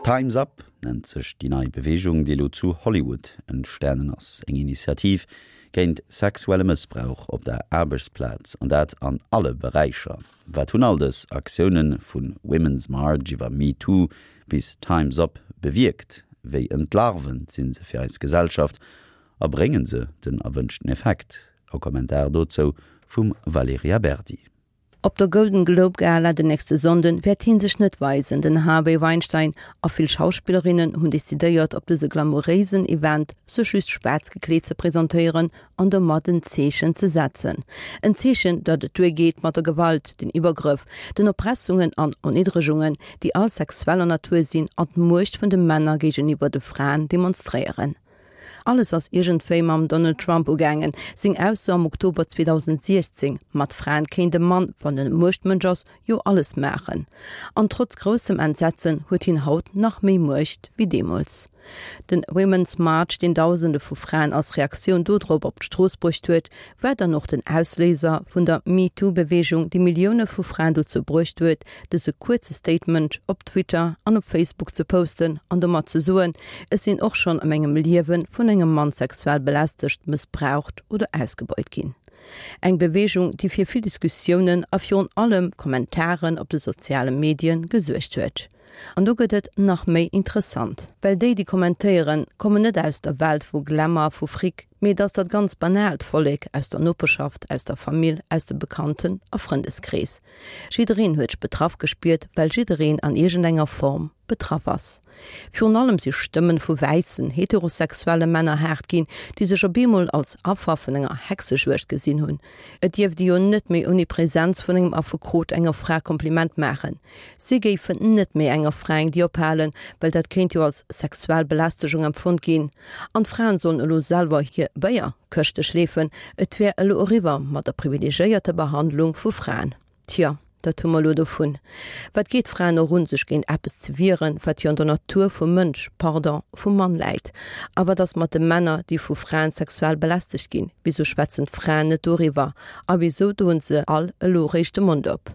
Time's Up nennt sech déi nei Beweegung, déi elo zu Hollywood entstanen ass. Eng Initiativ géint sexuelle Mëssbrauch op der Aarbechtsplaz, an dat an alle Beräicher. Wat hunn all dës Aktioune vu Women's March iwwer MeToo bis Time's Up bewierkt? Wéi entlarvend si se fir eis Gesellschaft a brénge se den erwënschten Effekt? E Kommentar dozou vum Valerija Berdi. Op der Golden Globe Gala den nächste Sonnden wäert hien sech net weisen. Den Harvey Weinstein a vill Schauspillerinnen hunn decidéiert op dëse glamouréisen Event sech just schwaarz gekleet ze presentéieren an domat en Zeechen ze setzen. En Zeechen, datt et duer geet mat der Gewalt, den Iwwergrëff, den Erpressungen an Erniddregungen, déi all sexueller Natur sinn an d'Muecht vun de Männer géigeniwwer de Fraen demonstréieren. Alles ass iergendwéi mam Donald Trump ugaangen. Seng Ausso am Oktober 2016, mat Fraen kéint e Mann, wann en e Muechtmënsch ass, jo alles maachen. An trotz groussem Entsetzen huet hien haut nach méi Muecht wéi deemools. Den Women's March, deen Dausende vu Fraen als Reaktioun dodrop op d'Strooss bruecht huet, war dann och den Ausléiser vun der MeToo-Beweegung, déi Millioune vu Fraen dozou bruecht huet, dëse kuerze Statement op Twitter an op Facebook ze posten an domat ze soen, Ech sinn och schonn a mengem Liewe vun engem Mann sexuell belästegt, mëssbraucht oder ausgebeut ginn. Eng Beweegung, déi fir vill Diskussiounen a virun allem Kommentaren op de soziale Medie gesuergt huet. An do gëtt et nach méi interessant. Well déi, déi kommentéieren, kommen net aus der Welt vu Glamour, vu Fric, mee et ass dat ganz banaalt Vollek aus der Noperschaft, aus der Famill, aus dem Bekannten a Frëndeskrees. Jiddereen huet sech betraff gespiert, well jiddereen an iergendenger Form betraff ass. Virun allem si Stëmmen vu wäissen, heterosexuelle Männer haart ginn, déi sech op eemol als Affer vun enger Hexejuegd gesinn hunn. Et dierft ee jo net méi ouni Präsenz vun engem Affekot enger Fra Kompliment maachen. Si géifen net méi enger Fra eng Dier ophalen, well dat kéint jo als sexuell Belästegung empfonnt ginn. An d'Fraen sollen elo selwer hir Béierkëschte schleefen, et wär elo eriwwer mat der privilegéierter Behandlung vu Fraen. Tjo, dat hu mer elo dovun. Wat geet d'Fraen och un, sech géint eppes ze wieren, wat jo an der Natur vum Mënsch, pardon, vum Mann läit? A wat ass mat de Männer, déi vu Fraen sexuell belästegt ginn? Wisou schwätzen d'Fraen net doriwwer? A wisou doen se all elo réischt de Mond op?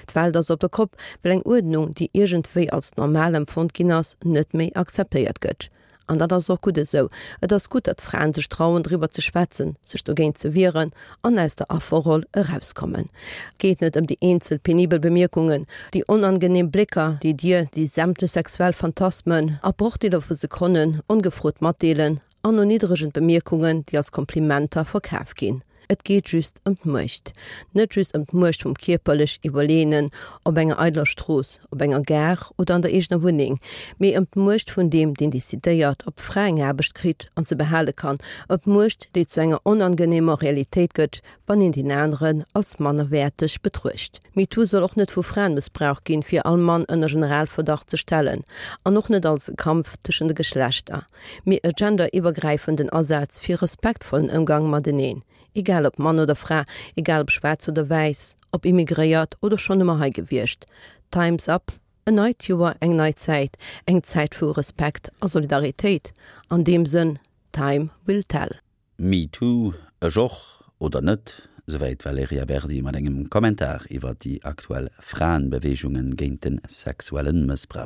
D'Welt ass op der Kopp, well eng Uerdnung, déi iergendwéi als normal empfonnt ginn ass, net méi akzeptéiert gëtt. An dat ass och gutt esou. Et ass gutt, datt Fraen sech trauen, driwwer ze schwätzen, sech dogéint ze wieren an aus der Afferroll erauskommen. Et geet net ëm déi eenzel penibel Bemierkungen, déi onangeneem Blécker, déi dir déi sämtlech sexuell Phantasmen a Brochdeeler vu Sekonnen ongefrot matdeelen, an erniddregend Bemierkungen, déi als Komplimenter verkaf ginn. Et geet just ëm d'Muecht. Net just ëm d'Muecht vum kierperlech Iwwerleeënen op enger eideler Strooss, op enger Gare oder an der eegener Wunneng, mee ëm d'Muecht vun deem, deen decidéiert, ob d'Fra eng Aarbecht kritt an se behale kann, ëm d'Muecht, déi zu enger onangeneemer Realitéit gëtt, wann een deen aneren als mannerwäerteg betruecht. MeToo soll och net vu Fraen mëssbraucht ginn, fir all Mann ënner Generalverdacht ze stellen, an och net als e Kampf tëschent de Geschlechter. Mee e genderiwwergräifenden Asaz fir respektvollen Ëmgang mateneen, egal ob Mann oder Fra, egal ob schwaarz oder wäiss, ob immigréiert oder schonn ëmmer hei gewiescht. Time's up, en neit Joer, eng nei Zäit, eng Zäit vu Respekt a Solidaritéit. An deem Sënn, Time will tell. Me too, ech och, oder net? Souwäit d'Valerija Berdi mat engem Kommentar iwwer déi aktuell Fraenbeweegungen géint de sexuelle Mëssbrauch.